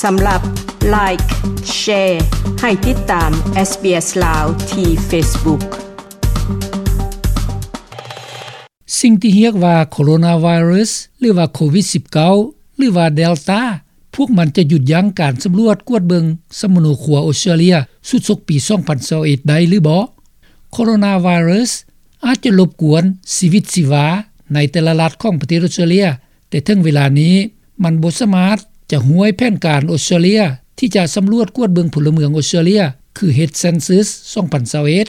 ສຳລັບ Like, Share ໃຫ້ຕິດຕາມ SBS ລາວ ທີ່ Facebook. ສິ່ງທີ່ຮຽກວ່າໂຄໂຣນາໄວຣັສ ຫຼືວ່າໂຄວິດສິບເກົ້າ ຫຼືວ່າເດລຕາ ພວກມັນຈະຢຸດຢັ້ງການສຳຫຼວດກວດເບິ່ງສຳມະໂນຄົວອົດສະຕຣາເລຍຊຸດສົກປີສອງພັນຊາວເອັດໄດ້ຫຼືບໍ່? ໂຄໂຣນາໄວຣັສອາດຈະລົບກວນຊີວິດຊີວາໃນແຕ່ລະລັດຂອງປະເທດອົດສະຕຣາເລຍ, ແຕ່ເຖິງເວລານີ້ມັນບໍ່ສາມາດຈະຫ້ວຍແຜນການອົດສະຕຣາເລຍທີ່ຈະສຳຫຼວດກວດເບິ່ງພົນລະເມືອງອົດສະຕຣາເລຍ ຄືເຮັດເຊັນຊຶສສອງພັນຊາວເອັດ.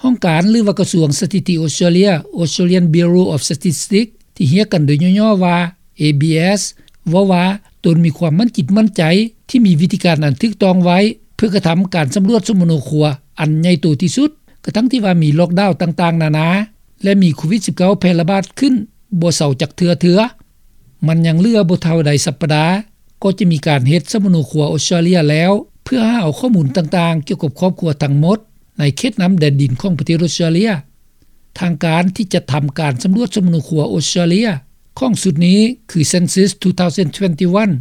ຫ້ອງການ ຫຼືວ່າກະຊວງສະຖິຕິອົດສະຕຣາເລຍ Australian Bureau of Statistics ທີ່ຮຽກກັນໂດຍຫຍໍ້ໆວ່າ ເອບີເອສ ເວົ້າວ່າຕົນມີຄວາມໝັ້ນຈິດໝັ້ນໃຈທີ່ມີວິທີການອັນຖືກຕ້ອງໄວ້ ເພື່ອກະທຳການສຳຫຼວດສຳມະໂນຄົວອັນໃຫຍ່ໂຕທີ່ສຸດ ກະທັ່ງທີ່ວ່າມີລ໊ອກດາວຕ່າງໆນານາ ແລະ ມີໂຄວິດສິບເກົ້າແຜ່ລະບາດຂຶ້ນບໍ່ເຊົາຈັກເທື່ອເທື່ອ. ມັນຍັງເຫຼືອບໍ່ເທົ່າໃດສັບປະດາ ກໍຈະມີການເຮັດສຳມະໂນຄົວອົດສະຕຣາເລຍແລ້ວ ເພື່ອຫາເອົາຂໍ້ມູນຕ່າງໆກ່ຽວກັບຄອບຄົວທັງໝົດໃນເຂດນ້ຳແດນດິນຂອງປະເທດອົດສະຕຣາເລຍ. ທາງການທີ່ຈັດທຳການສຳຫຼວດສຳມະໂນຄົວອົດສະຕຣາເລຍຂອງຊຸດນີ້ຄື Census two thousand twenty-one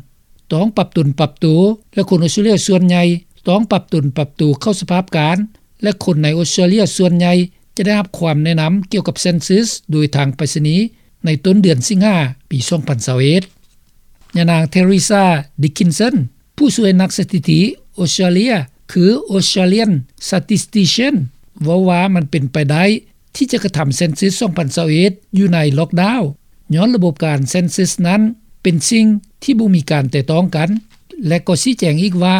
ຕ້ອງປັບຕົນປັບໂຕ ແລະ ຄົນອົດສະຕຣາເລຍສ່ວນໃຫຍ່ຕ້ອງປັບຕົນປັບໂຕເຂົ້າສະພາບການ ແລະ ຄົນໃນອົດສະຕຣາເລຍສ່ວນໃຫຍ່ຈະໄດ້ຮັບຄຳແນະນຳກ່ຽວກັບເຊັນຊຶສໂດຍທາງໄປສະນີໃນຕົ້ນເດືອນສິງຫາປີສອງພັນຊາວເອັດ. ຍານາງ Teresa Dickinson ຜູ້ຊ່ວຍນັກສະຖິຕິອົດສະຕຣາເລຍ ຄື Australian Statistician ເວົ້າວ່າມັນເປັນໄປໄດ້ທີ່ຈະກະທຳເຊັນຊຶສສອງພັນຊາວເອັດຢູ່ໃນລ໊ອກດາວ ຍ້ອນລະບົບການເຊັນຊຶສນັ້ນເປັນສິ່ງທີ່ບໍ່ມີການແຕະຕ້ອງກັນ ແລະ ກໍຊີ້ແຈງອີກວ່າ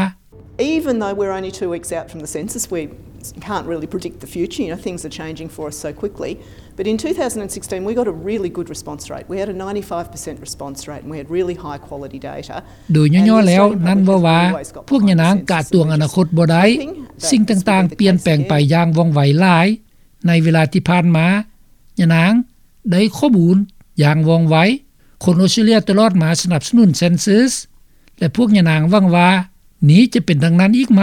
Even though we're only two weeks out from the census, we can't really predict the future. You know, things are changing for us so quickly. But in two thousand sixteen, we got a really good response rate. We had a ninety-five percent response rate and we had really high quality data. ໂດຍຫຍໍ້ໆແລ້ວນັ້ນເວົ້າວ່າ ພວກຍານາງກະຕວງອະນາຄົດບໍ່ໄດ້. ສິ່ງຕ່າງໆປ່ຽນແປງໄປຢ່າງວ່ອງໄວຫຼາຍ. ໃນເວລາທີ່ຜ່ານມາ ຍານາງໄດ້ຂໍ້ມູນຢ່າງວ່ອງໄວ. ຄົນອົດສະຕຣາເລຍຕະຫຼອດມາສະໜັບສະໜູນເຊັນຊຶສ ແລະ ພວກຍານາງຫວັງວ່ານີ້ຈະເປັນດັ່ງນັ້ນອີກໄໝ?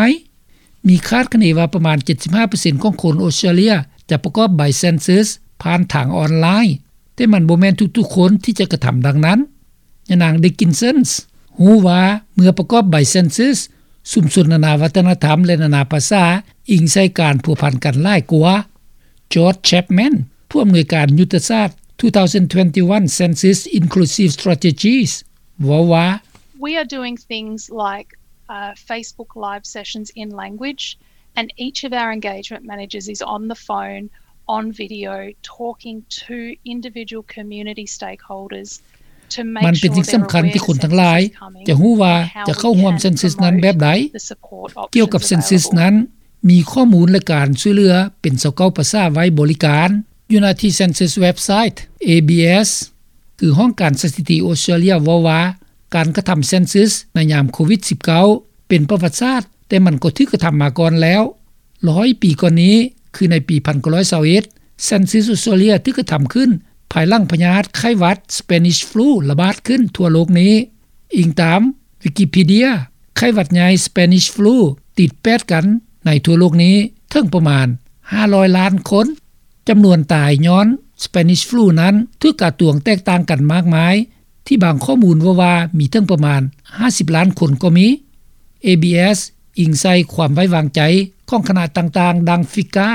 ມີຄາດຄະເນວ່າປະມານເຈັດສິບຫ້າເປີເຊັນຂອງຄົນອົດສະຕຣາເລຍຈະປະກອບໃບເຊັນຊຶສຜ່ານທາງອອນລາຍ, ແຕ່ມັນບໍ່ແມ່ນທຸກໆຄົນທີ່ຈະກະທຳດັ່ງນັ້ນ. ຍານາງ Dickinson ຮູ້ວ່າເມື່ອປະກອບໃບເຊັນຊຶສ, ຊຸມຊົນນານາວັດທະນະທຳ ແລະ ນານາພາສາ ອີງໃສ່ການພົວພັນກັນຫຼາຍກວ່າ. George Chapman ຜູ້ອຳນວຍການຍຸດທະສາດ two thousand twenty-one Census Inclusive Strategies ເວົ້າວ່າ We are doing things like, uh, Facebook Live sessions in language, and each of our engagement managers is on the phone, on video, talking to individual community stakeholders to make sure they're aware the census is coming and how we can provide them with support options available. ມັນເປັນສິ່ງສຳຄັນທີ່ຄົນທັງຫຼາຍຈະຮູ້ວ່າຈະເຂົ້າຮ່ວມເຊັນຊຶສນັ້ນແບບໃດ. ກ່ຽວກັບເຊັນຊຶສນັ້ນ ມີຂໍ້ມູນ ແລະ ການຊ່ວຍເຫຼືອເປັນຊາວເກົ້າພາສາໄວ້ບໍລິການ. ຢູ່ໜ້າທີ່ເຊັນຊຶສເວັບໄຊ ເອບີເອສ ຄືຫ້ອງການສະຖິຕິອົດສະຕຣາເລຍເວົ້າວ່າ ການກະທຳເຊັນຊຶສໃນຍາມໂຄວິດສິບເກົ້າ ເປັນປະຫວັດສາດ, ແຕ່ມັນກໍຖືກກະທຳມາກ່ອນແລ້ວ. ຮ້ອຍປີກ່ອນນີ້ ຄືໃນປີພັນເກົ້າຮ້ອຍຊາວເອັດ ເຊັນຊຶສອົດສະຕຣາເລຍຖືກກະທຳຂຶ້ນ ພາຍຫຼັງພະຍາດໄຂ້ຫວັດ Spanish Flu ລະບາດຂຶ້ນທົ່ວໂລກນີ້. ອີງຕາມວິກິພີເດຍ, ໄຂ້ຫວັດໃຫຍ່ Spanish Flu ຕິດແປດກັນໃນທົ່ວໂລກນີ້ເຖິງປະມານຫ້າຮ້ອຍລ້ານຄົນ. ຈຳນວນຕາຍຍ້ອນ Spanish Flu ນັ້ນຖືກກະຕວງແຕກຕ່າງກັນມາກມາຍ, ທີ່ບາງຂໍ້ມູນເວົ້າວ່າມີເຖິງປະມານຫ້າສິບລ້ານຄົນກໍມີ. ເອບີເອສ ອີງໃສ່ຄວາມໄວ້ວາງໃຈຂອງຄະນະຕ່າງໆ ດັ່ງ FICCA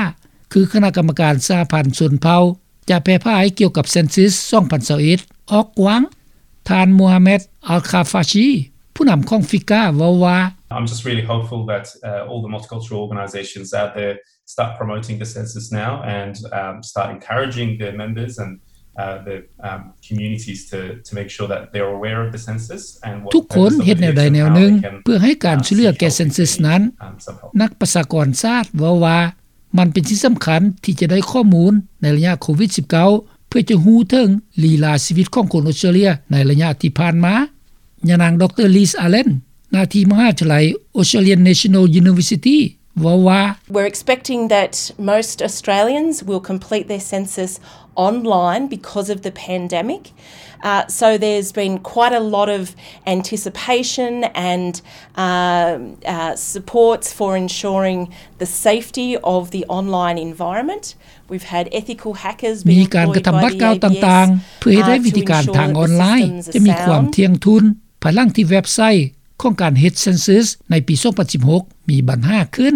ຄືຄະນະກຳມະການສະຫະພັນຊົນເຜົ່າ ຈະແຜ່ຜາຍກ່ຽວກັບເຊັນຊຶສສອງພັນຊາວເອັດອອກກວ້າງ. ທ່ານ Mohamed Al-Khafashi ຜູ້ນຳຂອງ FICCA ເວົ້າວ່າ I'm just really hopeful that, uh, all the multicultural organisations out there start promoting the census now and, um, start encouraging their members and, uh, the, um, communities to, to make sure that they're aware of the census and what ທຸກຄົນເຮັດແນວໃດແນວໜຶ່ງເພື່ອໃຫ້ການຊ່ວຍເຫຼືອແກ່ເຊັນຊຶສນັ້ນ. ນັກປະຊາກອນສາດເວົ້າວ່າ ມັນເປັນສິ່ງສຳຄັນທີ່ຈະໄດ້ຂໍ້ມູນໃນໄລຍະໂຄວິດສິບເກົ້າ ເພື່ອຈະຮູ້ເຖິງລີລາຊີວິດຂອງຄົນອົດສະຕຣາເລຍໃນໄລຍະທີ່ຜ່ານມາ. ຍານາງ ດຣ Liz Allen ໜ້າທີ່ມະຫາວິທະຍາໄລ Australian National University ເວົ້າວ່າ We're expecting that most Australians will complete their census online because of the pandemic. Uh, so there's been quite a lot of anticipation and, uh, uh, supports for ensuring the safety of the online environment. We've had ethical hackers being employed by the ABS, uh, to ensure that the systems are sound. ມີການກະທຳບາດກ້າວຕ່າງໆ ເພື່ອເຮັດໃຫ້ວິທີການທາງອອນລາຍຈະມີຄວາມທ່ຽງທຸນ ພາຍຫຼັງທີ່ເວັບໄຊ ຂອງການເຮັດເຊັນເຊີສໃນປີສອງພັນສິບຫົກ ມີບັນຫາຂຶ້ນ.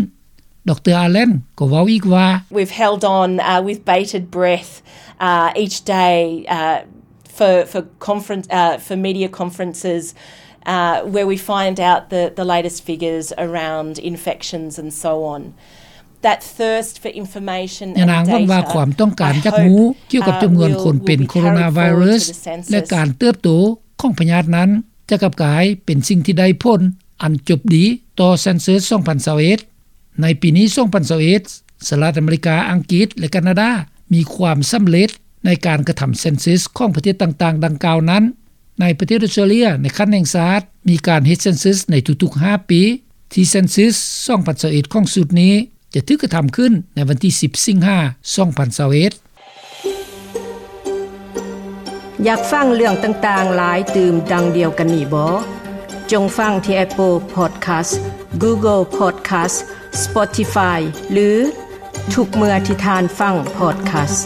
ດຣ. Allen ກໍເວົ້າອີກວ່າ We've held on, uh, with bated breath, uh, each day, uh, for, for conference, uh, for media conferences, uh, where we find out the, the latest figures around infections and so on. That thirst for information and data, ຍານາງເວົ້າວ່າ ຄວາມຕ້ອງການຢາກຮູ້ກ່ຽວກັບຈຳນວນຄົນເປັນໂຄໂຣນາໄວຣັສ ແລະ ການເຕີບໂຕຂອງພະຍາດນັ້ນ ຈະກັບກາຍເປັນສິ່ງທີ່ໄດ້ຜົນອັນຈົບດີຕໍ່ເຊັນເຊີສສອງພັນຊາວເອັດ. ໃນປີນີ້ ສອງພັນຊາວເອັດ ສະຫະລັດອາເມລິກາ, ອັງກິດ ແລະ ການາດາ ມີຄວາມສຳເລັດໃນການກະທຳເຊັນເຊີສຂອງປະເທດຕ່າງໆດັ່ງກ່າວນັ້ນ. ໃນປະເທດອອສເຕຣເລັຍ ໃນຂັ້ນແຫ່ງຊາດ ມີການເຮັດເຊັນເຊີສໃນທຸກໆຫ້າປີ, ທີ່ເຊັນເຊີສສອງພັນຊາວເອັດຂອງຊຸດນີ້ ຈະຖືກກະທຳຂຶ້ນໃນວັນທີສິບ ສິງຫາ ສອງພັນຊາວເອັດ. ຢາກຟັງເລື່ອງຕ່າງໆຫຼາຍຕື່ມດັ່ງດຽວກັນນີ້ບໍ? ຈົ່ງຟັງທີ່ Apple Podcast, Google Podcast, Spotify ຫຼື ທຸກເມື່ອທີ່ທ່ານຟັງ Podcast.